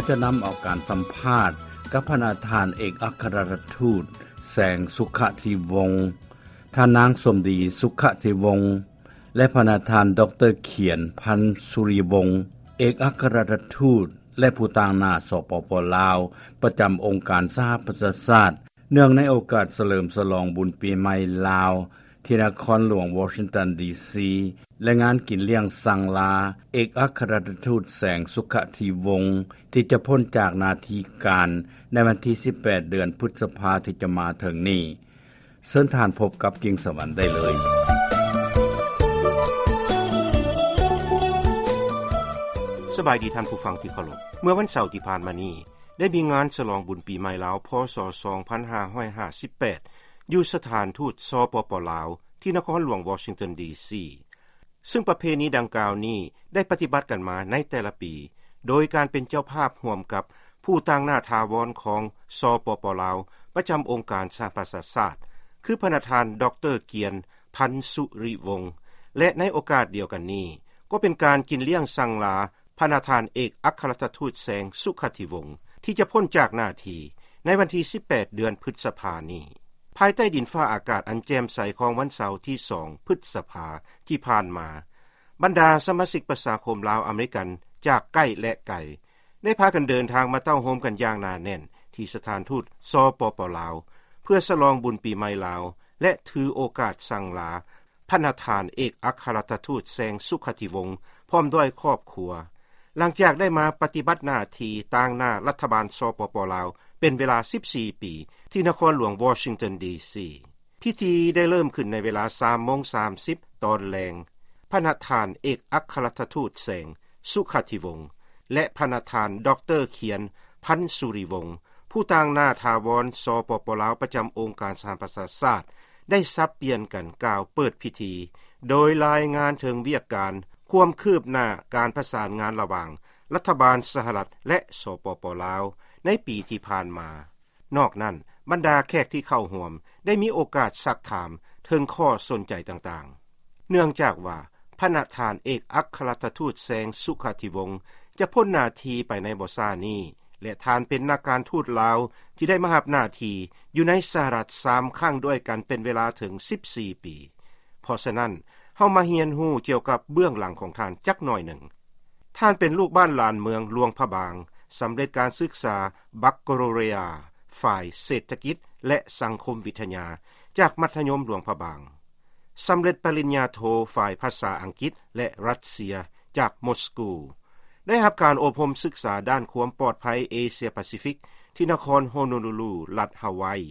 ຈະນຳເອົາການສຳພາດກັບພະນະທ່ານເອກອັຄຄະລັດຖະທູດ ແສງ ສຸຂະທິວົງ, ທ່ານນາງ ສົມດີ ສຸຂະທິວົງ ແລະ ພະນະທ່ານ ດອກເຕີ ຂຽນ ພັນສຸລິວົງ ເອກອັຄຄະລັດຖະທູດ ແລະ ຜູ້ຕາງໜ້າ ສປປ ລາວ ປະຈຳອົງການສະຫະປະຊາຊາດ ເນື່ອງໃນໂອກາດສະເຫຼີມສະຫຼອງບຸນປີໃໝ່ລາວ ທີ່ນະຄອນຫຼວງວໍຊິງຕັນ ດີຊີ ແລະ ງານກິນລ້ຽງສັງລາ ເອກອັກຄະລັດຖະທູດ ແສງ ສຸຂະທິວົງ ທີ່ຈະພົ້ນຈາກໜ້າທີ່ການໃນວັນທີສິບແປດ ເດືອນພຶດສະພາທີ່ຈະມາເຖິງນີ້. ເຊີນທ່ານພົບກັບກິ່ງສະຫວັນໄດ້ເລີຍ. ສະບາຍດີທ່ານຜູ້ຟັງທີ່ເຄົາລົບ. ເມື່ອວັນເສົາທີ່ຜ່ານມານີ້ ໄດ້ມີງານສະຫຼອງບຸນປີໃໝ່ລາວ ພ.ສ. ສອງພັນຫ້າຮ້ອຍຫ້າສິບແປດ ຢູ່ສະຖານທູດ ສປປ ລາວ ທີ່ນະຄອນຫຼວງວໍຊິງຕັນ ດີຊີ ຊຶ່ງປະເພນີດັ່ງກ່າວນີ້ໄດ້ປະຕິບັດກັນມາໃນແຕ່ລະປີ ໂດຍການເປັນເຈົ້າພາບຮ່ວມກັບຜູ້ຕາງໜ້າຖາວອນຂອງ ສປປ ລາວ ປະຈຳອົງການສະຫະປະຊາຊາດ ຄືພະນະທ່ານ ດອກເຕີ ກຽນ ພັນສຸລິວົງ ແລະ ໃນໂອກາດດຽວກັນນີ້ ກໍເປັນການກິນລ້ຽງສັງລາ ພະນະທ່ານເອກອັກຄະລັດຖະທູດ ແສງ ສຸຂະທິວົງ ທີ່ຈະພົ້ນຈາກໜ້າທີ່ໃນວັນທີສິບແປດ ເດືອນພຶດສະພານີ້. ພາຍໃຕ້ດິນຟ້າອາກາດອັນແຈ່ມໃສຂອງວັນເສົາທີສອງ ພຶດສະພາທີ່ຜ່ານມາ, ບັນດາສະມາຊິກປະຊາຄົມລາວອາເມລິກັນຈາກໃກ້ ແລະ ໄກ ໄດ້ພາກັນເດີນທາງມາເຕົ້າໂຮມກັນຢ່າງໜາແໜ້ນທີ່ສະຖານທູດ ສປປ ລາວ ເພື່ອສະຫຼອງບຸນປີໃໝ່ລາວ ແລະ ຖືໂອກາດສັງລາ ພະນະທ່ານເອກອັກຄະລັດຖະທູດ ແສງ ສຸຂະທິວົງ ພ້ອມດ້ວຍຄອບຄົວ ຫຼັງຈາກໄດ້ມາປະຕິບັດໜ້າທີ່ຕາງໜ້າລັດຖະບານ ສປປ ລາວ ເປັນເວລາສິບສີ່ປີ ທີ່ນະຄອນຫຼວງວໍຊິງຕັນ ດີຊີ. ພິທີໄດ້ເລີ່ມຂຶ້ນໃນເວລາສາມໂມງສາມສິບຕອນແລງ. ພະນະທ່ານເອກອັກຄະລັດຖະທູດ ແສງ ສຸຂະທິວົງ ແລະ ພະນະທ່ານ ດອກເຕີ ຂຽນ ພັນສຸລິວົງ ຜູ້ຕາງໜ້າຖາວອນ ສປປ ລາວ ປະຈຳອົງການສະຫະປະຊາຊາດ ໄດ້ສັບປ່ຽນກັນກ່າວເປີດພິທີ ໂດຍລາຍງານເຖິງວຽກການຄວາມຄືບໜ້າການປະສານງານລະຫວ່າງລັດຖະບານສະຫະລັດ ແລະ ສປປ ລາວ ໃນປີທີ່ຜ່ານມາ. ນອກນັ້ນ, ບັນດາແຂກທີ່ເຂົ້າຮ່ວມໄດ້ມີໂອກາດຊັກຖາມເຖິງຂໍ້ສົນໃຈຕ່າງໆ. ເນື່ອງຈາກວ່າ ພະນະທ່ານເອກອັກຄະລັດຖະທູດ ແສງ ສຸຂະທິວົງ ຈະພົ້ນໜ້າທີ່ໄປໃນບໍ່ຊ້ານີ້ ແລະ ທ່ານເປັນນັກການທູດລາວທີ່ໄດ້ມາຮັບໜ້າທີ່ຢູ່ໃນສະຫະລັດສາມຄັ້ງດ້ວຍກັນເປັນເວລາເຖິງສິບສີ່ປີ. ເພາະສະນັ້ນ, ເຮົາມາຮຽນຮູ້ກ່ຽວກັບເບື້ອງຫຼັງຂອງທ່ານຈັກໜ້ອຍໜຶ່ງ. ທ່ານເປັນລູກບ້ານຫຼານເມືອງຫຼວງພະບາງ, ສຳເລັດການສຶກສາບັກກາໂລເຣຍ ຝ່າຍເສດຖະກິດ ແລະ ສັງຄົມວິທະຍາ ຈາກມັດທະຍົມຫຼວງພະບາງ, ສຳເລັດປະລິນຍາໂທຝ່າຍພາສາອັງກິດ ແລະ ຣັດເຊຍ ຈາກມົສກູ, ໄດ້ຮັບການອົບຮົມສຶກສາດ້ານຄວາມປອດໄພເອເຊຍປາຊີຟິກ ທີ່ນະຄອນໂຮໂນລູລູ ລັດຮາວາຍ,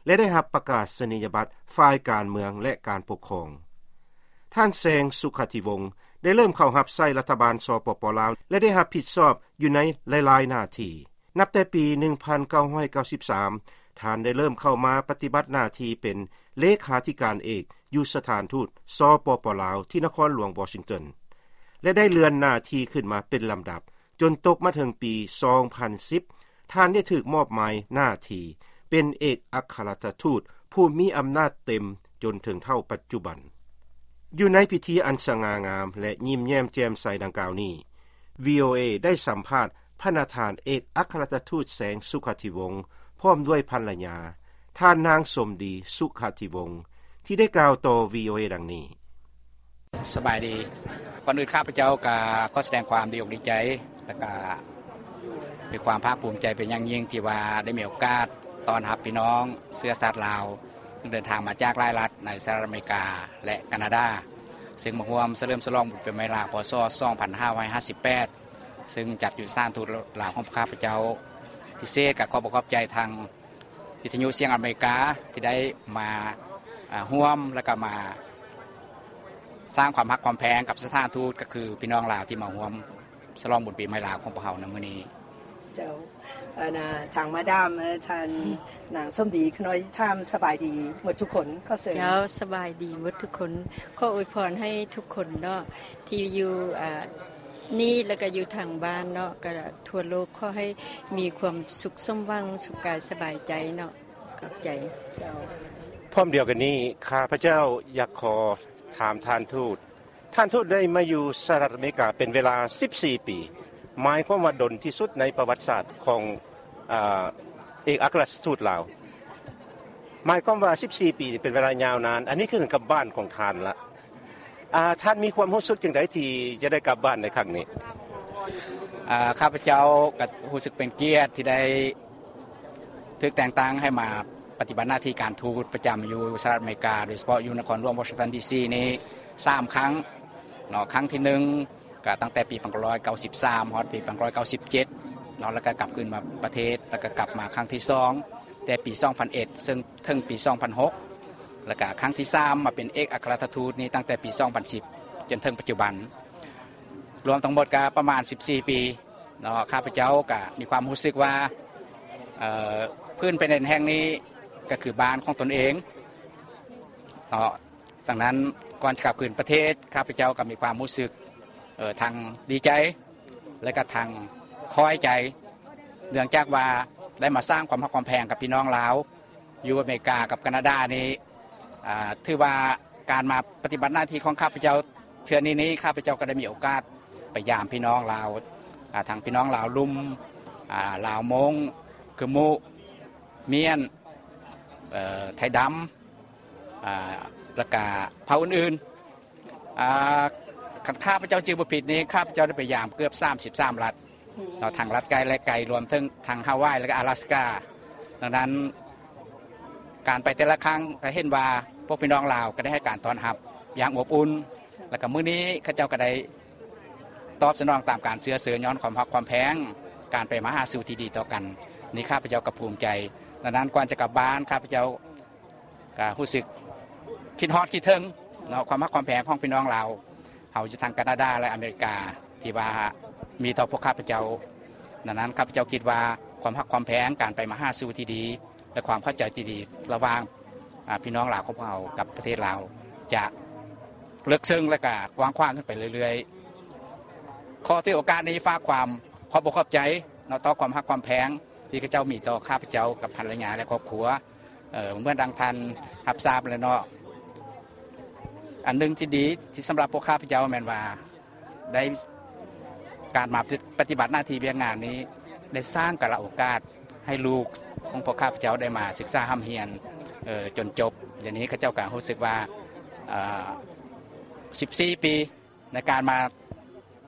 ແລະ ໄດ້ຮັບປະກາສະນີຍະບັດຝ່າຍການເມືອງ ແລະ ການປົກຄອງ. ທ່ານ ແສງ ສຸຂະທິວົງ ໄດ້ເລີ່ມເຂົ້າຮັບໃຊ້ລັດຖະບານ ສປປ ລາວ ແລະ ໄດ້ຮັບຜິດຊອບຢູ່ໃນຫຼາຍໆໜ້າທີ່. ນັບແຕ່ປີໜຶ່ງພັນເກົ້າຮ້ອຍເກົ້າສິບສາມ ທ່ານໄດ້ເລີ່ມເຂົ້າມາປະຕິບັດໜ້າທີ່ເປັນເລຂາທິການເອກຢູ່ສະຖານທູດ ສປປ ລາວ ທີ່ນະຄອນຫຼວງວໍຊິງຕັນ ແລະ ໄດ້ເລື່ອນໜ້າທີ່ຂຶ້ນມາເປັນລຳດັບ ຈົນຕົກມາເຖິງປີສອງພັນສິບ ທ່ານໄດ້ຖືກມອບໝາຍໜ້າທີ່ເປັນເອກອັກຄະລັດຖະທູດຜູ້ມີອຳນາດເຕັມຈົນເຖິງເທົ່າປັດຈຸບັນ. ຢູ່ໃນພິທີອັນສະຫງ່າງາມ ແລະ ຍິ້ມແຍ້ມແຈ່ມໃສດັ່ງກ່າວນີ້, ວີໂອເອ ໄດ້ສຳພາດພະນະທ່ານເອກອັກຄະລັດຖະທູດ ແສງ ສຸຂະທິວົງ ພ້ອມດ້ວຍພັນລະຍາ ທ່ານນາງ ສົມດີ ສຸຂະທິວົງ ທີ່ໄດ້ກ່າວຕໍ່ ວີໂອເອ ດັ່ງນີ້. ສະບາຍດີ. ກ່ອນອື່ນຂ້າພະເຈົ້າກໍຂໍສະແດງຄວາມດີອົກດີໃຈ ແລະກະມີຄວາມພາກພູມໃຈເປັນຢ່າງຍິ່ງ ທີ່ວ່າໄດ້ມີໂອກາດຕ້ອນຮັບພີ່ນ້ອງເຊື້ອຊາດລາວ ຊຶ່ງເດີນທາງມາຈາກຫຼາຍລັດໃນສະຫະລັດອາເມລິກາ ແລະ ການາດາ ຊຶ່ງມາຮ່ວມສະເຫຼີມສະຫຼອງບຸນປີໃໝ່ລາວ ພ.ສ. ສອງພັນຫ້າຮ້ອຍຫ້າສິບແປດ ຊຶ່ງຈັດຢູ່ສະຖານທູດລາວຂອງພວກຂ້າພະເຈົ້າ. ພິເສດກໍຂໍບອກຂອບໃຈທາງ ວິທະຍຸສຽງອາເມລິກາທີ່ໄດ້ມາ ອາ ຮ່ວມ ແລະກະມາສ້າງຄວາມຮັກຄວາມແພງກັບສະຖານທູດ ກໍຄືພີ່ນ້ອງລາວທີ່ມາຮ່ວມສະຫຼອງບຸນປີໃໝ່ລາວຂອງພວກເຮົາໃນມື້ນີ້. ເຈົ້າ ອັນນ່າ ທາງມາດາມ ເອີ ທ່ານນາງສົມດີ ຂະນ້ອຍຖາມ ສະບາຍດີໝົດທຸກຄົນ. ຂໍເຊີນ. ເຈົ້າ ສະບາຍດີໝົດທຸກຄົນ. ຂໍອວຍພອນໃຫ້ທຸກຄົນເນາະ ທີ່ຢູ່ ອາ ນີ້ ແລ້ວກໍຢູ່ທາງບ້ານເນາະ ກໍທົ່ວໂລກ ຂໍໃຫ້ມີຄວາມສຸກສົມຫວັງ ສຸກກາຍສະບາຍໃຈເນາະ. ຂອບໃຈ. ເຈົ້າ. ພ້ອມດຽວກັນນີ້ ຂ້າພະເຈົ້າຢາກຂໍຖາມທ່ານທູດ, ທ່ານທູດໄດ້ມາຢູ່ສະຫະລັດອາເມລິກາເປັນເວລາສິບສີ່ປີ, ໝາຍຄວາມວ່າດົນທີ່ສຸດໃນປະຫວັດສາດຂອງ ອາ ເອກອັກຄະລັດທູດລາວ. ໝາຍຄວາມວ່າສິບສີ່ປີນີ້ເປັນເວລາຍາວນານ, ອັນນີ້ຄືກັບບ້ານຂອງທ່ານລະ. ອາ ທ່ານມີຄວາມຮູ້ສຶກຈັ່ງໃດທີ່ຈະໄດ້ກັບບ້ານໃນຄັ້ງນີ້? ອາ ຂ້າພະເຈົ້າກໍຮູ້ສຶກເປັນກຽດທີ່ໄດ້ຖືກແຕ່ງຕັ້ງໃຫ້ມາປະຕິບັດໜ້າທີ່ການທູດປະຈຳຢູ່ສະຫະລັດອາເມລິກາ, ໂດຍສະເພາະຢູ່ນະຄອນຫຼວງວໍຊິງຕັນ ດີຊີ ນີ້ສາມຄັ້ງເນາະ. ຄັ້ງທີໜຶ່ງ ກໍຕັ້ງແຕ່ປີພັນເກົ້າຮ້ອຍເກົ້າສິບສາມ ຮອດປີພັນເກົ້າຮ້ອຍເກົ້າສິບເຈັດເນາະ, ແລ້ວກໍກັບຄືນມາປະເທດ, ແລ້ວກໍກັບມາຄັ້ງທີສອງ ແຕ່ປີສອງພັນເອັດ ເຊິ່ງເຖິງປີສອງພັນຫົກ ແລ້ວກໍຄັ້ງທີສາມ ມາເປັນເອກອັກຄະລັດຖະທູດນີ້ຕັ້ງແຕ່ປີສອງພັນສິບ ຈົນເຖິງປັດຈຸບັນ, ລວມທັງໝົດກໍປະມານສິບສີ່ປີເນາະ. ຂ້າພະເຈົ້າກໍມີຄວາມຮູ້ສຶກວ່າ ເອີ ພື້ນແຜ່ນດິນແຫ່ງນີ້ກໍຄືບ້ານຂອງຕົນເອງເນາະ. ດັ່ງນັ້ນ ກ່ອນຈະກັບຄືນປະເທດ, ຂ້າພະເຈົ້າກໍມີຄວາມຮູ້ສຶກ ເອີ ທັງດີໃຈ ແລະກະທັງຄ້ອຍໃຈ, ເນື່ອງຈາກວ່າໄດ້ມາສ້າງຄວາມຮັກຄວາມແພງກັບພີ່ນ້ອງລາວຢູ່ອາເມລິກາກັບການາດານີ້. ອາ ຖືວ່າການມາປະຕິບັດໜ້າທີ່ຂອງຂ້າພະເຈົ້າເທື່ອນີ້ນີ້, ຂ້າພະເຈົ້າກໍໄດ້ມີໂອກາດໄປຢາມພີ່ນ້ອງລາວ, ອາ ທັງພີ່ນ້ອງລາວລຸ່ມ, ອາ ລາວມົ້ງ, ກຶມມຸ, ມ້ຽນ, ເອີ ໄທດຳ, ອາ ແລ້ວກະເຜົ່າອື່ນໆ. ອາ ຄັນຂ້າພະເຈົ້າຈື່ບໍ່ຜິດນີ້, ຂ້າພະເຈົ້າໄດ້ໄປຢາມເກືອບສາມສິບສາມລັດເນາະ, ທັງລັດໃກ້ແລະໄກ, ລວມເຖິງທັງຮາວາຍ ແລະກະອາລາສກາ. ດັ່ງນັ້ນ ການໄປແຕ່ລະຄັ້ງກໍເຫັນວ່າພວກພີ່ນ້ອງລາວກໍໄດ້ໃຫ້ການຕ້ອນຮັບຢ່າງອົບອຸ່ນ, ແລ້ວກໍມື້ນີ້ເຂົາເຈົ້າກໍໄດ້ຕອບສະໜອງຕາມການເຊື້ອເຊີນ ຍ້ອນຄວາມຮັກຄວາມແພງ, ການໄປມາຫາສູ່ທີ່ດີຕໍ່ກັນ. ນີ້ຂ້າພະເຈົ້າກໍພູມໃຈ. ດັ່ງນັ້ນ ກ່ອນຈະກັບບ້ານ, ຂ້າພະເຈົ້າ ກະຮູ້ສຶກຄິດຮອດຄິດເຖິງເນາະ ຄວາມຮັກຄວາມແພງຂອງພີ່ນ້ອງລາວເຮົາຢູ່ທາງການາດາ ແລະອາເມລິກາ ທີ່ວ່າມີຕໍ່ພວກຂ້າພະເຈົ້າ. ດັ່ງນັ້ນ ຂ້າພະເຈົ້າຄິດວ່າຄວາມຮັກຄວາມແພງ, ການໄປມາຫາສູ່ທີ່ດີ ແລະຄວາມເຂົ້າໃຈທີ່ດີລະຫວ່າງ ອາ ພີ່ນ້ອງລາວຂອງພວກເຮົາກັບປະເທດລາວ ຈະເລິກເຊິ່ງ ແລະກະກວ້າງຂວາງຂຶ້ນໄປເລື້ອຍໆ. ຂໍຖືໂອກາດນີ້ຝາກຄວາມຂອບອົກຂອບໃຈເນາະ ຕໍ່ຄວາມຮັກຄວາມແພງ ທີ່ເຂົາເຈົ້າມີຕໍ່ຂ້າພະເຈົ້າກັບພັນລະຍາ ແລະຄອບຄົວ. ເອີ ເໝືອນດັ່ງທ່ານຮັບຊາບແລ້ວເນາະ, ອັນໜຶ່ງທີ່ດີທີ່ສຳລັບພວກຂ້າພະເຈົ້າແມ່ນວ່າ ໄດ້ ການມາປະຕິບັດໜ້າທີ່ວຽກງານນີ້ ໄດ້ສ້າງກາລະໂອກາດໃຫ້ລູກຂອງພວກຂ້າພະເຈົ້າໄດ້ມາສຶກສາຮ່ຳຮຽນ ເອີ ຈົນຈົບ. ດຽວນີ້ເຂົາເຈົ້າກໍຮູ້ສຶກວ່າ ເອີ ສິບສີ່ປີ ໃນການມາ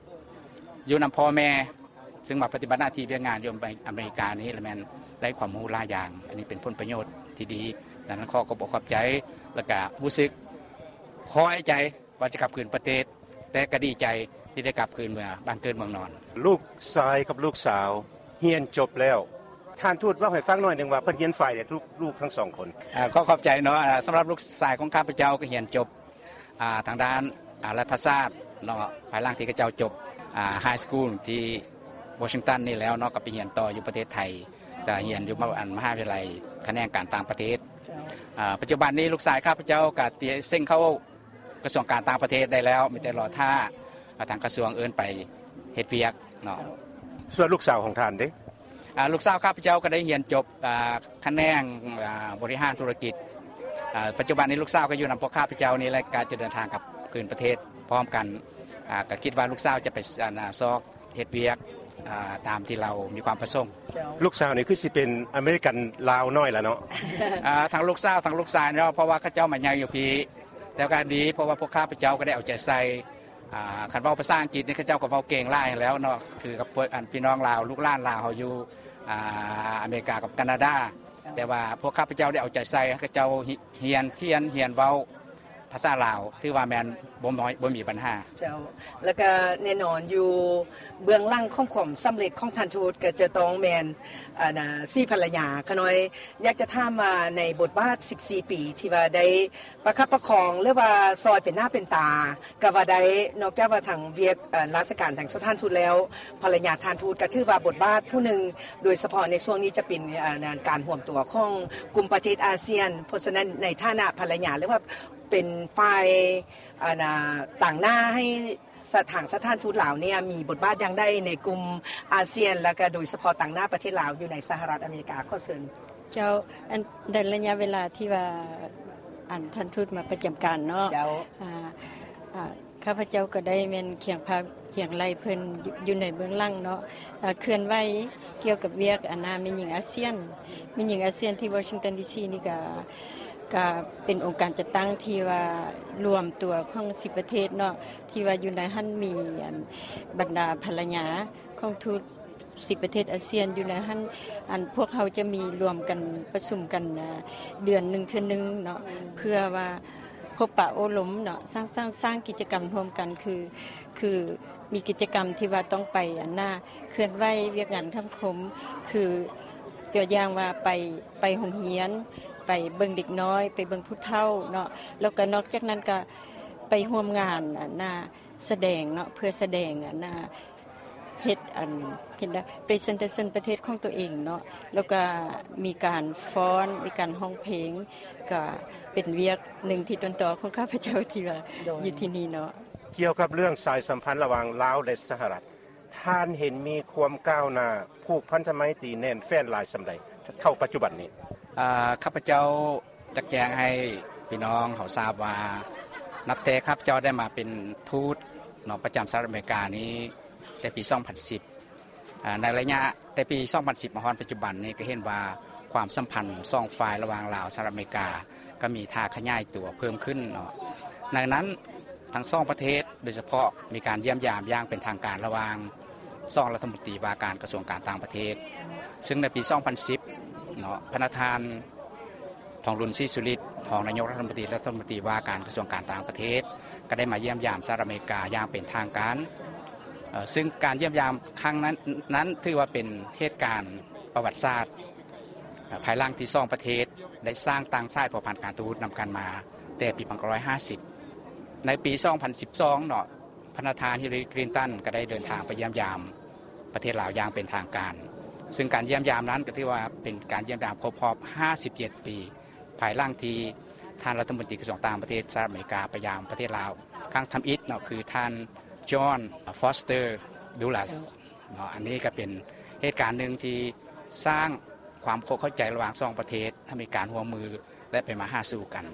ຢູ່ນຳພໍ່ແມ່ ຊຶ່ງມາປະຕິບັດໜ້າທີ່ວຽກງານຢູ່ອາເມລິການີ້ ລະແມ່ນໄດ້ຄວາມຮູ້ຫຼາຍຢ່າງ. ອັນນີ້ເປັນຜົນປະໂຫຍດທີ່ດີ. ດັ່ງນັ້ນ ຂໍຂອບອົກຂອບໃຈ ແລະກະຮູ້ສຶກພໍໃຈວ່າຈະກັບຄືນປະເທດ, ແຕ່ກະດີໃຈທີ່ໄດ້ກັບຄືນເມືອບ້ານເກີດເມືອງນອນ. ລູກຊາຍກັບລູກສາວຮຽນຈົບແລ້ວ, ທ່ານທູດເວົ້າໃຫ້ຟັງໜ້ອຍໜຶ່ງວ່າເພິ່ນຮຽນຝ່າຍໃດ ລູກທັງສອງຄົນ? ອາ ຂໍຂອບໃຈເນາະ. ອາ ສຳລັບລູກຊາຍຂອງຂ້າພະເຈົ້າກໍຮຽນຈົບ ອ່າ ທາງດ້ານ ອາ ລັດຖະສາດເນາະ, ພາຍຫຼັງທີ່ເຂົາເຈົ້າຈົບ ອາ ໄຮສະກູນທີ່ວໍຊິງຕັນນີ້ແລ້ວເນາະ ກໍໄປຮຽນຕໍ່ຢູ່ປະເທດໄທ, ກໍຮຽນຢູ່ມະ ອັນ ມະຫາວິທະຍາໄລຂະແໜງການຕ່າງປະເທດ. ເຈົ້າ. ອາ ປັດຈຸບັນນີ້ລູກຊາຍຂ້າພະເຈົ້າກໍຕຽມເສັງເຂົ້າກະຊວງການຕ່າງປະເທດໄດ້ແລ້ວ, ມີແຕ່ລໍຖ້າ ອາ ທາງກະຊວງເອີ້ນໄປເຮັດວຽກເນາະ. ເຈົ້າ. ສ່ວນລູກສາວຂອງທ່ານເດ? ອາ ລູກສາວຂ້າພະເຈົ້າກໍໄດ້ຮຽນຈົບ ອາ ຂະແໜງ ອາ ບໍລິຫານທຸລະກິດ. ອາ ປັດຈຸບັນນີ້ລູກສາວກໍຢູ່ນຳພວກຂ້າພະເຈົ້ານີ້ແຫຼະ, ກໍຈະເດີນທາງກັບຄືນປະເທດພ້ອມກັນ. ອາ ກໍຄິດວ່າລູກສາວຈະໄປ ອັນ ອາ ຊອກເຮັດວຽກ ອາ ຕາມທີ່ລາວມີຄວາມປະສົງ. ເຈົ້າ. ລູກສາວນີ້ຄືຊິເປັນອາເມລິກັນລາວນ້ອຍລະເນາະ? ອາ ທັງລູກສາວທັງລູກຊາຍເນາະ, ເພາະວ່າເຂົາເຈົ້າມາໃຫຍ່ຢູ່ພີ້. ແຕ່ກໍດີ ເພາະວ່າພວກຂ້າພະເຈົ້າກໍໄດ້ເອົາໃຈໃສ່ ອາ ຄັນເວົ້າພາສາອັງກິດນີ້ ເຂົາເຈົ້າກໍເວົ້າເກັ່ງຫຼາຍຫັ້ນແຫຼ້ວເນາະ, ຄືກັບພວກ ອັນ ພີ່ນ້ອງລາວ ລູກຫຼານລາວເຮົາຢູ່ ອາ ອາເມລິກາກັບການາດາ. ແຕ່ວ່າພວກຂ້າພະເຈົ້າໄດ້ເອົາໃຈໃສ່ ເຂົາເຈົ້າຮຽນຂຽນ ຮຽນເວົ້າພາສາລາວ ຖືວ່າແມ່ນບໍ່ນ້ອຍ ບໍ່ມີບັນຫາ. ເຈົ້າ. ແລ້ວກະແນ່ນອນຢູ່ເບື້ອງຫຼັງຂອງຄວາມສຳເລັດຂອງທ່ານທູດ ກໍຈະຕ້ອງແມ່ນ ອັນ ອາ ສີພັນລະຍາ. ຂ້ານ້ອຍຢາກຈະຖາມວ່າ ໃນບົດບາດສິບສີ່ປີທີ່ວ່າໄດ້ ປະຄັບປະຄອງ ຫຼືວ່າຊ່ອຍເປັນໜ້າເປັນຕາກໍວ່າໄດ້. ນອກຈາກວ່າທາງວຽກ ເອີ ລາຊະການທາງສະຖານທູດແລ້ວ, ພັນລະຍາທ່ານທູດກໍຖືວ່າບົດບາດຜູ້ໜຶ່ງ, ໂດຍສະເພາະໃນຊ່ວງນີ້ຈະເປັນ ເອີ ການຮວມຕົວຂອງກຸ່ມປະເທດອາຊຽນ. ເພາະສະນັ້ນ ໃນຖານະພັນລະຍາ ຫຼືວ່າເປັນຝ່າຍ ອັນ ຕາງໜ້າໃຫ້ ສະ ທາງສະຖານທູດລາວເນ່ຍ ມີບົດບາດຢ່າງໃດໃນກຸ່ມອາຊຽນ ແລ້ວກະໂດຍສະເພາະຕາງໜ້າປະເທດລາວຢູ່ໃນສະຫະລັດອາເມລິກາ? ຂໍເຊີນ. ເຈົ້າ, ອັນ ໃນໄລຍະເວລາທີ່ວ່າ ອັນ ທ່ານທູດມາປະຈຳການເນາະ. ເຈົ້າ. ອາ ອາ ຂ້າພະເຈົ້າກໍໄດ້ແມ່ນຄຽງພາຄຽງໄຫຼເພິ່ນຢູ່ໃນເບື້ອງຫຼັງເນາະ ເຄື່ອນໄຫວກ່ຽວກັບວຽກອັນນ່າແມ່ຍິງອາຊຽນ ແມ່ຍິງອາຊຽນທີ່ວໍຊິງຕັນດີຊີນີ້ກະ ກະເປັນອົງການຈັດຕັ້ງທີ່ວ່າລວມຕົວຂອງສິບປະເທດເນາະ ທີ່ວ່າຢູ່ໃນຫັ້ນມີອັນບັນດາພັນລະຍາຂອງທູດ ສິບປະເທດອາຊຽນຢູ່ໃນຫັ້ນ ອັນພວກເຮົາຈະມີລວມກັນປະຊຸມກັນເດືອນໜຶ່ງເທື່ອໜຶ່ງເນາະ ເພື່ອວ່າພົບປະໂອ້ລົມເນາະ ສ້າງສ້າງສ້າງກິດຈະກຳຮ່ວມກັນ ຄືຄືມີກິດຈະກຳທີ່ວ່າຕ້ອງໄປອັນນ່າເຄື່ອນໄຫວວຽກງານສັງຄົມ ຄືຕົວຢ່າງວ່າໄປໄປໂຮງຮຽນ ໄປເບິ່ງເດັກນ້ອຍ ໄປເບິ່ງຜູ້ເຖົ້າເນາະ ແລ້ວກໍນອກຈາກນັ້ນກໍໄປຮ່ວມງານອັນນ່າ ສະແດງເນາະ ເພື່ອສະແດງອັນນ່າເຮັດອັນເຮັດນະ presentation ປະເທດຂອງຕົວເອງເນາະ ແລ້ວກະມີການຟ້ອນ ມີການຮ້ອງເພງ ກະເປັນວຽກໜຶ່ງທີ່ຕົ້ນຕໍຂອງຂ້າພະເຈົ້າທີ່ວ່າຢູ່ທີ່ນີ້ເນາະ. ກ່ຽວກັບເລື່ອງສາຍສຳພັນລະຫວ່າງລາວ ແລະ ສະຫະລັດ ທ່ານເຫັນມີຄວາມກ້າວໜ້າ ຜູກພັນທະໄມຕີແໜ້ນແຟ້ນຫຼາຍສ່ຳໃດເທົ່າປັດຈຸບັນນີ້? ອາ ຂ້າພະເຈົ້າ ຢາກແຈ້ງໃຫ້ພີ່ນ້ອງເຮົາຊາບວ່າ ນັບແຕ່ຂ້າພະເຈົ້າໄດ້ມາເປັນທູດເນາະ ປະຈຳສະຫະລັດອາເມລິການີ້ ແຕ່ປີສອງພັນສິບ ອາ ໃນໄລຍະແຕ່ປີສອງພັນສິບມາຮອດປັດຈຸບັນນີ້ ກໍເຫັນວ່າຄວາມສຳພັນສອງຝ່າຍລະຫວ່າງລາວ ສະຫະລັດອາເມລິກາ ກໍມີທ່າຂະຫຍາຍຕົວເພີ່ມຂຶ້ນເນາະ ໃນນັ້ນທັງສອງປະເທດ ໂດຍສະເພາະມີການຢ້ຽມຢາມຢ່າງເປັນທາງການລະຫວ່າງສອງລັດຖະມົນຕີວ່າການກະຊວງການຕ່າງປະເທດ ຊຶ່ງໃນປີສອງພັນສິບເນາະ ພະນະທ່ານ ທອງລຸນ ສີສຸລິດ ຮອງນາຍົກລັດຖະມົນຕີ ລັດຖະມົນຕີວ່າການກະຊວງການຕ່າງປະເທດ ກໍໄດ້ມາຢ້ຽມຢາມສະຫະລັດອາເມລິກາຢ່າງເປັນທາງການ ເຊິ່ງການຢ້ຽມຢາມຄັ້ງນັ້ນ ນັ້ນຖືວ່າເປັນເຫດການປະຫວັດສາດ ພາຍຫຼັງທີ່ສອງປະເທດໄດ້ສ້າງຕັ້ງສາຍພົວພັນການທູດນຳກັນມາແຕ່ປີໜຶ່ງພັນເກົ້າຮ້ອຍຫ້າສິບ ໃນປີສອງພັນສິບສອງເນາະ ພະນະທ່ານ ຮິລລາຣີ ຄລິນຕັນ ກໍໄດ້ເດີນທາງໄປຢ້ຽມຢາມປະເທດລາວຢ່າງເປັນທາງການ ຊຶ່ງການຢ້ຽມຢາມນັ້ນກໍຖືວ່າເປັນການຢ້ຽມຢາມຄົບຮອບຫ້າສິບເຈັດປີ ພາຍຫຼັງທີ່ທ່ານລັດຖະມົນຕີກະຊວງຕ່າງປະເທດສະຫະລັດອາເມລິກາໄປຢາມປະເທດລາວຄັ້ງທຳອິດເນາະ ຄືທ່ານ ຈອນ ຟອສເຕີ ດູລັດ ເນາະ ອັນນີ້ກໍເປັນເຫດການໜຶ່ງທີ່ສ້າງຄວາມເຂົ້າໃຈລະຫວ່າງສອງປະເທດ ໃຫ້ມີການຮ່ວມມື ແລະ ໄປມາຫາສູ່ກັນ.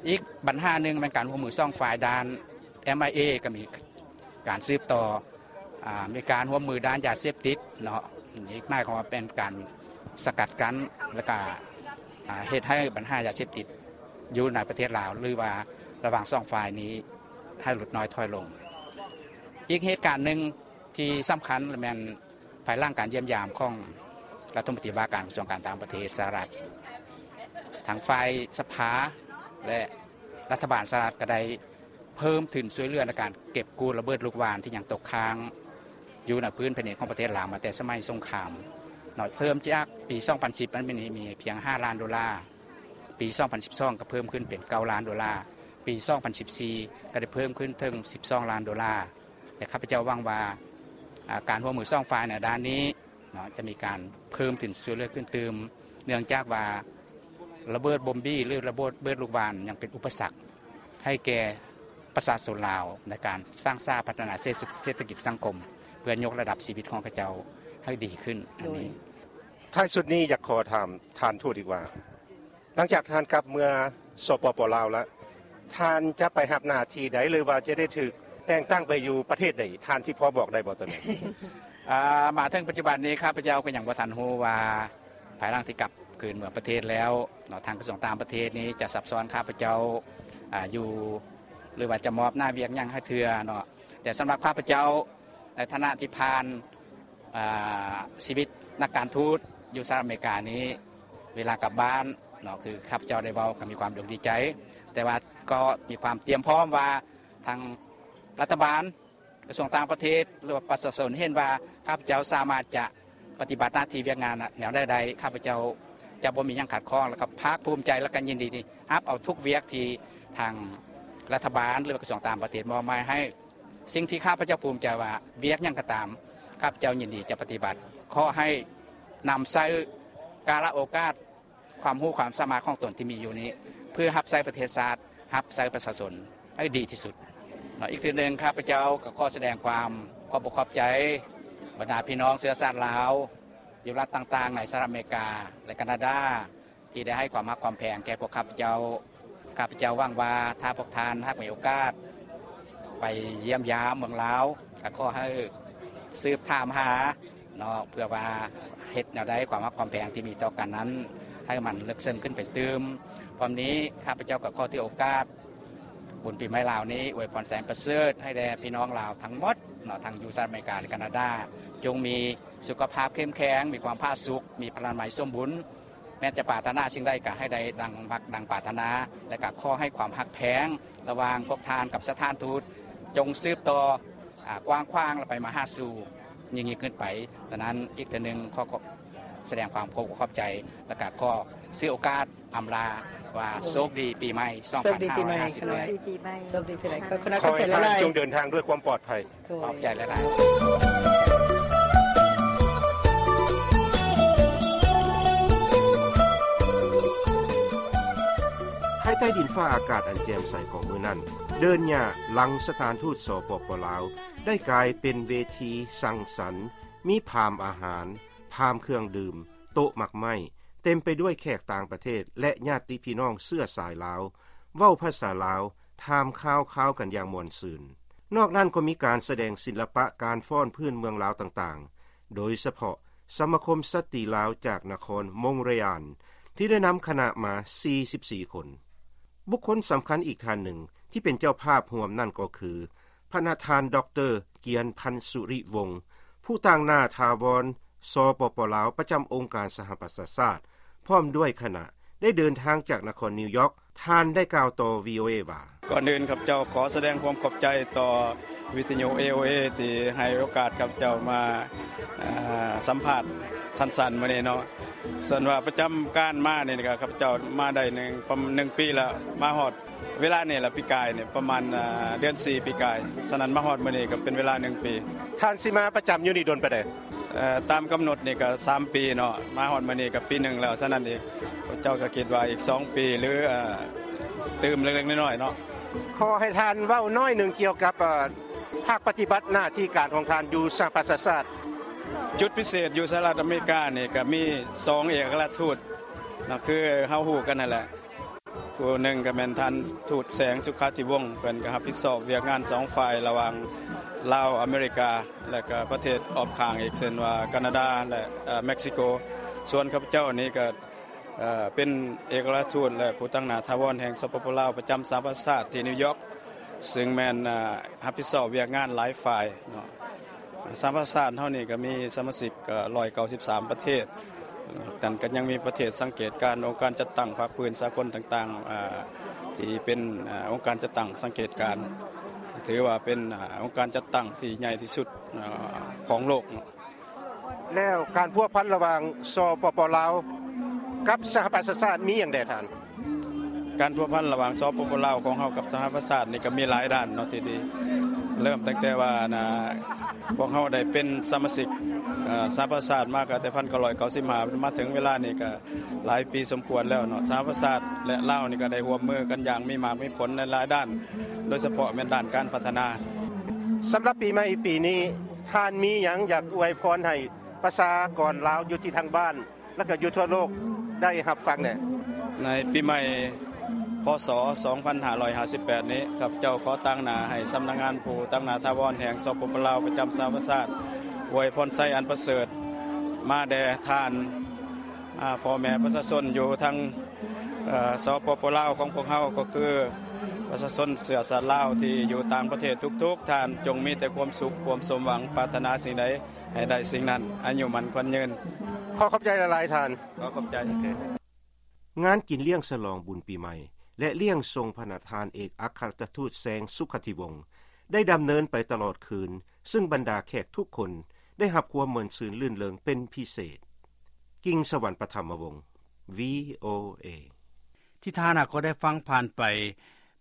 ອີກບັນຫາໜຶ່ງແມ່ນການຮ່ວມມືສອງຝ່າຍດ້ານ ເອັມໄອເອ ກໍມີການສືບຕໍ່ ອາ ມີການຮ່ວມມືດ້ານຢາເສບຕິດເນາະ ນີ້ໝາຍຄວາມວ່າເປັນການສະກັດກັ້ນ ແລ້ວກະ ອາ ເຮັດໃຫ້ບັນຫາຢາເສບຕິດຢູ່ໃນປະເທດລາວ ຫຼືວ່າລະຫວ່າງສອງຝ່າຍນີ້ໃຫ້ຫຼຸດນ້ອຍຖອຍລົງ. ອີກເຫດການໜຶ່ງທີ່ສຳຄັນແມ່ນ ພາຍຫຼັງການຢ້ຽມຢາມຂອງລັດຖະມົນຕີວ່າການກະຊວງການຕ່າງປະເທດສະຫະລັດ ທາງຝ່າຍສະພາ ແລະ ລັດຖະບານສະຫະລັດກໍໄດ້ເພີ່ມທຶນຊ່ວຍເຫຼືອໃນການເກັບກູ້ລະເບີດລູກຫວ່ານທີ່ຍັງຕົກຄ້າງຢູ່ໃນພື້ນແຜ່ນດິນຂອງປະເທດລາວມາແຕ່ສະໄໝສົງຄາມເນາະ ເພີ່ມຈາກປີສອງພັນສິບ ມັນມີ ມີພຽງຫ້າລ້ານໂດລາ ປີສອງພັນສິບສອງ ກໍເພີ່ມຂຶ້ນເປັນເກົ້າລ້ານໂດລາ ປີສອງພັນສິບສີ່ ກໍໄດ້ເພີ່ມຂຶ້ນເຖິງສິບສອງລ້ານໂດລາ ແລະ ຂ້າພະເຈົ້າຫວັງວ່າ ອາ ການຮ່ວມມືສອງຝ່າຍໃນດ້ານນີ້ເນາະ ຈະມີການເພີ່ມທຶນຊ່ວຍເຫຼືອຂຶ້ນຕື່ມ ເນື່ອງຈາກວ່າລະເບີດບົມບີ ຫຼື ລະເບີດລູກຫວ່ານຍັງເປັນອຸປະສັກໃຫ້ແກ່ປະຊາຊົນລາວ ໃນການສ້າງສາພັດທະນາເສດ ເສດຖະກິດສັງຄົມ ເພື່ອຍົກລະດັບຊີວິດຂອງເຂົາເຈົ້າໃຫ້ດີຂຶ້ນ. ອັນນີ້ ໂດຍ ທ້າຍສຸດນີ້ຢາກຂໍຖາມທ່ານທູດອີກວ່າ ຫຼັງຈາກທ່ານກັບເມືອ ສປປ ລາວ ແລ້ວ ທ່ານຈະໄປຮັບໜ້າທີ່ໃດ ຫຼືວ່າຈະໄດ້ຖືກແຕ່ງຕັ້ງໄປຢູ່ປະເທດໃດ ທ່ານຊິພໍບອກໄດ້ບໍ່ໂຕນີ້? ອາ ມາເຖິງປັດຈຸບັນນີ້ ຂ້າພະເຈົ້າກໍຍັງບໍ່ທັນຮູ້ວ່າ ພາຍຫຼັງທີ່ກັບຄືນເມືອປະເທດແລ້ວເນາະ ທາງກະຊວງຕ່າງປະເທດນີ້ຈະຊັບຊ້ອນຂ້າພະເຈົ້າ ອາ ຢູ່ ຫຼືວ່າຈະມອບໜ້າວຽກຫຍັງໃຫ້ເທື່ອເນາະ ແຕ່ສຳລັບຂ້າພະເຈົ້າ ໃນຖານະທີ່ຜ່ານ ອາ ຊີວິດນັກການທູດຢູ່ສະຫະລັດອາເມລິການີ້ ເວລາກັບບ້ານເນາະ ຄືຂ້າພະເຈົ້າໄດ້ເວົ້າກໍມີຄວາມດົກດີໃຈ ແຕ່ວ່າກໍມີຄວາມຕຽມພ້ອມວ່າ ທາງລັດຖະບານ ກະຊວງຕ່າງປະເທດ ຫຼືວ່າປະຊາຊົນເຫັນວ່າ ຂ້າພະເຈົ້າສາມາດຈະປະຕິບັດໜ້າທີ່ວຽກງານແນວໃດໄດ້ ຂ້າພະເຈົ້າຈະບໍ່ມີຫຍັງຂັດຂ້ອງ ແລ້ວກໍພາກພູມໃຈ ແລ້ວກໍຍິນດີທີ່ຮັບເອົາທຸກວຽກທີ່ທາງລັດຖະບານ ຫຼືວ່າກະຊວງຕ່າງປະເທດມອບໝາຍໃຫ້. ສິ່ງທີ່ຂ້າພະເຈົ້າພູມໃຈວ່າ ວຽກຫຍັງກໍຕາມ ຂ້າພະເຈົ້າຍິນດີຈະປະຕິບັດ. ຂໍໃຫ້ນຳໃຊ້ກາລະໂອກາດ ຄວາມຮູ້ຄວາມສາມາດຂອງຕົນທີ່ມີຢູ່ນີ້ ເພື່ອຮັບໃຊ້ປະເທດຊາດ ຮັບໃຊ້ປະຊາຊົນໃຫ້ດີທີ່ສຸດເນາະ. ອີກເທື່ອໜຶ່ງ ຂ້າພະເຈົ້າກໍຂໍສະແດງຄວາມຂອບອົກຂອບໃຈ ບັນດາພີ່ນ້ອງເຊື້ອຊາດລາວ ຢູ່ລັດຕ່າງໆໃນສະຫະລັດອາເມລິກາ ແລະ ການາດາ ທີ່ໄດ້ໃຫ້ຄວາມຮັກຄວາມແພງແກ່ພວກຂ້າພະເຈົ້າ. ຂ້າພະເຈົ້າຫວັງວ່າ ຖ້າພວກທ່ານຫາກມີໂອກາດ ໄປຢ້ຽມຢາມເມືອງລາວ ກໍຂໍໃຫ້ສືບຖາມຫາເນາະ ເພື່ອວ່າເຮັດແນວໃດ ຄວາມຮັກຄວາມແພງທີ່ມີຕໍ່ກັນນັ້ນ ໃຫ້ມັນເລິກເຊິ່ງຂຶ້ນໄປຕື່ມ. ພ້ອມນີ້ ຂ້າພະເຈົ້າກໍຂໍຖືໂອກາດບຸນປີໃໝ່ລາວນີ້ ອວຍພອນແສນປະເສີດໃຫ້ແດ່ພີ່ນ້ອງລາວທັງໝົດເນາະ ທັງຢູ່ສະຫະລັດອາເມລິກາ ແລະ ການາດາ ຈົ່ງມີສຸຂະພາບເຂັ້ມແຂງ, ມີຄວາມຜາສຸກ, ມີພະລານາໄມສົມບູນ, ແມ່ນຈະປາດຖະໜາສິ່ງໃດກໍໃຫ້ໄດ້ດັ່ງມັກດັ່ງປາດຖະໜາ ແລະ ກໍຂໍໃຫ້ຄວາມຮັກແພງລະຫວ່າງພວກທ່ານກັບສະຖານທູດ ຈົ່ງສືບຕໍ່ ອາ ກວ້າງຂວາງ ແລະ ໄປມະຫາສູ່ຍິ່ງໆຂຶ້ນໄປ. ດັ່ງນັ້ນ ອີກເທື່ອໜຶ່ງ ຂໍ ຂໍສະແດງຄວາມຂອບອົກຂອບໃຈ ແລະ ກໍຂໍຖືໂອກາດອຳລາວ່າ ໂຊກດີປີໃໝ່ ໂຊກດີປີໃໝ່ ສອງພັນຫ້າຮ້ອຍຫ້າສິບແປດ. ໂຊກດີປີໃໝ່ ໂຊກດີປີໃໝ່. ຂໍໃຫ້ທ່ານຈົ່ງເດີນທາງດ້ວຍຄວາມປອດໄພ. ໂດຍ ຂອບໃຈຫຼາຍໆ. ພາຍໃຕ້ດິນຟ້າອາກາດອັນແຈ່ມໃສຂອງມື້ນັ້ນ, ເດີ່ນຫຍ້າຫຼັງສະຖານທູດ ສປປ ລາວ ໄດ້ກາຍເປັນເວທີສັງສັນ, ມີພາມອາຫານ, ພາມເຄື່ອງດື່ມ, ໂຕະໝາກໄມ້, ເຕັມໄປດ້ວຍແຂກຕ່າງປະເທດ ແລະ ຍາດຕິພີ່ນ້ອງເຊື້ອສາຍລາວ, ເວົ້າພາສາລາວ, ຖາມຂ່າວຄາວກັນຢ່າງມ່ວນຊື່ນ. ນອກນັ້ນກໍມີການສະແດງສິລະປະການຟ້ອນພື້ນເມືອງລາວຕ່າງໆ, ໂດຍສະເພາະສະມາຄົມສະຕຣີລາວຈາກນະຄອນມົງເຣອານ ທີ່ໄດ້ນຳຄະນະມາສີ່ສິບສີ່ຄົນ. ບຸກຄົນສຳຄັນອີກທ່ານໜຶ່ງທີ່ເປັນເຈົ້າພາບຮ່ວມນັ້ນກໍຄື ພະນະທ່ານ ດອກເຕີ ກຽນພັນ ສຸລິວົງ ຜູ້ຕາງໜ້າຖາວອນ ສປປ ລາວ ປະຈຳອົງການສະຫະປະຊາຊາດ ພ້ອມດ້ວຍຄະນະ ໄດ້ເດີນທາງຈາກນະຄອນນິວຢອກ. ທ່ານໄດ້ກ່າວຕໍ່ ວີໂອເອ ວ່າ: ກ່ອນອື່ນ ຂ້າພະເຈົ້າຂໍສະແດງຄວາມຂອບໃຈຕໍ່ວິທະຍຸ ເອໂອເອ ທີ່ໃຫ້ໂອກາດຂ້າພະເຈົ້າມາ ເອີ ສຳພາດສັ້ນໆມື້ນີ້ເນາະ. ສ່ວນວ່າປະຈຳການມານີ້ກໍ ຂ້າພະເຈົ້າມາໄດ້ໜຶ່ງ ປະມານໜຶ່ງປີແລ້ວ ມາຮອດ ເວລານີ້ລະ ປີກາຍນີ້ປະມານ ເອີ ເດືອນສີ່ປີກາຍ. ສະນັ້ນມາຮອດມື້ນີ້ກໍເປັນເວລາໜຶ່ງປີ. ທ່ານຊິມາປະຈຳຢູ່ນີ້ດົນປານໃດ? ເອີ ຕາມກຳນົດນີ້ກໍສາມປີເນາະ, ມາຮອດມື້ນີ້ກໍປີໜຶ່ງແລ້ວ. ສະນັ້ນອີກ ເຈົ້າກໍຄິດວ່າອີກສອງປີ ຫຼື ເອີ ຕື່ມເລັກໆນ້ອຍໆເນາະ. ຂໍໃຫ້ທ່ານເວົ້າໜ້ອຍໜຶ່ງກ່ຽວກັບ ເອີ ພາກປະຕິບັດໜ້າທີ່ການຂອງທ່ານຢູ່ສະຫະປະຊາຊາດ. ຈຸດພິເສດຢູ່ສະຫະລັດອາເມລິການີ້ກໍມີສອງເອກອັກຄະລັດທູດເນາະ ຄືເຮົາຮູ້ກັນນັ້ນແຫຼະ. ຜູ້ໜຶ່ງກໍແມ່ນທ່ານທູດ ແສງ ສຸຂາທິວົງ ເພິ່ນກໍຮັບຜິດຊອບວຽກງານສອງຝ່າຍ ລະຫວ່າງລາວ ອາເມລິກາ ແລະ ກໍປະເທດອ້ອມຂ້າງອີກ ເຊັ່ນວ່າ ການາດາ ແລະ ເອີ ເມັກຊິໂກ. ສ່ວນຂ້າພະເຈົ້ານີ້ກໍ ເອີ ເປັນເອກອັກຄະລັດທູດ ແລະ ຜູ້ຕາງໜ້າຖາວອນແຫ່ງ ສປປ ລາວ ປະຈຳສະຫະປະຊາຊາດທີ່ນິວຢອກ ຊຶ່ງແມ່ນ ເອີ ຮັບຜິດຊອບວຽກງານຫຼາຍຝ່າຍເນາະ. ສະຫະປະຊາຊາດເຮົານີ້ກໍມີສະມາຊິກ ເອີ ຮ້ອຍເກົ້າສິບສາມປະເທດ, ແຕ່ກໍຍັງມີປະເທດສັງເກດການ, ອົງການຈັດຕັ້ງພາກພື້ນສາກົນຕ່າງໆ ເອີ ທີ່ເປັນ ເອີ ອົງການຈັດຕັ້ງສັງເກດການ, ຖືວ່າເປັນ ເອີ ອົງການຈັດຕັ້ງທີ່ໃຫຍ່ທີ່ສຸດ ເອີ ຂອງໂລກເນາະ. ແລ້ວການພົວພັນລະຫວ່າງ ສປປ ລາວ ກັບສະຫະປະຊາຊາດມີຫຍັງແດ່ທ່ານ? ການພົວພັນລະຫວ່າງ ສປປ ລາວ ຂອງເຮົາກັບສະຫະປະຊາຊາດນີ້ກໍມີຫຼາຍດ້ານເນາະ ທີ່ດີ. ເລີ່ມຕັ້ງແຕ່ວ່າ ນະ ພວກເຮົາໄດ້ເປັນສະມາຊິກ ເອີ ສະຫະປະຊາຊາດມາກໍແຕ່ພັນເກົ້າຮ້ອຍເກົ້າສິບຫ້າ ມາເຖິງເວລານີ້ກໍຫຼາຍປີສົມຄວນແລ້ວເນາະ. ສະຫະປະຊາຊາດ ແລະ ລາວນີ້ກໍໄດ້ຮ່ວມມືກັນຢ່າງມີໝາກມີຜົນໃນຫຼາຍດ້ານ, ໂດຍສະເພາະແມ່ນດ້ານການພັດທະນາ. ສຳລັບປີໃໝ່ປີນີ້ ທ່ານມີຫຍັງຢາກອວຍພອນໃຫ້ປະຊາກອນລາວຢູ່ທີ່ທາງບ້ານ ແລະ ກໍຢູ່ທົ່ວໂລກໄດ້ຮັບຟັງແດ່? ໃນປີໃໝ່ ພ.ສ. ສອງພັນຫ້າຮ້ອຍຫ້າສິບແປດນີ້ ຂ້າພະເຈົ້າຂໍຕາງໜ້າໃຫ້ສຳນັກງານຜູ້ຕາງໜ້າຖາວອນແຫ່ງ ສປປ ລາວ ປະຈຳສະຫະປະຊາຊາດ ອວຍພອນໄຊອັນປະເສີດມາແດ່ທ່ານ ອາ ພໍ່ແມ່ປະຊາຊົນຢູ່ທາງ ເອີ ສປປ ລາວ ຂອງພວກເຮົາ ກໍຄືປະຊາຊົນເຊື້ອຊາດລາວທີ່ຢູ່ຕ່າງປະເທດທຸກໆທ່ານ ຈົ່ງມີແຕ່ຄວາມສຸກ ຄວາມສົມຫວັງ, ປາດຖະໜາສິ່ງໃດໃຫ້ໄດ້ສິ່ງນັ້ນ, ອາຍຸໝັ້ນຂວັນຍືນ. ຂໍຂອບໃຈຫຼາຍໆທ່ານ. ຂໍຂອບໃຈ. ງານກິນລ້ຽງສະຫຼອງບຸນປີໃໝ່ ແລະ ລ້ຽງສົ່ງພະນະທ່ານເອກອັກຄະລັດທູດ ແສງ ສຸຂະທິວົງ ໄດ້ດຳເນີນໄປຕະຫຼອດຄືນ, ຊຶ່ງບັນດາແຂກທຸກຄົນໄດ້ຮັບຄວາມມ່ວນຊື່ນລື່ນເລີງເປັນພິເສດ. ກິງສະຫວັນ ປະຖຳມະວົງ ວີໂອເອ. ທີ່ທ່ານຫາກໍໄດ້ຟັງຜ່ານໄປ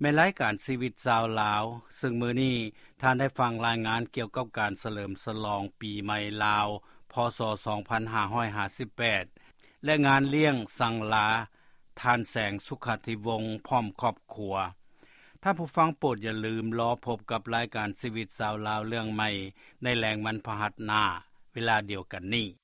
ແມ່ນລາຍການຊີວິດຊາວລາວ, ຊຶ່ງມື້ນີ້ທ່ານໄດ້ຟັງລາຍງານກ່ຽວກັບການສະເຫຼີມສະຫຼອງປີໃໝ່ລາວ ພ.ສ. ສອງພັນຫ້າຮ້ອຍຫ້າສິບແປດ ແລະ ງານລ້ຽງສັງລາທ່ານແສງ ສຸຂະທິວົງ ພ້ອມຄອບຄົວ. ທ່ານຜູ້ຟັງໂປດຢ່າລືມລໍພົບກັບລາຍການຊີວິດຊາວລາວເລື່ອງໃໝ່ ໃນແລງວັນພະຫັດໜ້າ ເວລາດຽວກັນນີ້.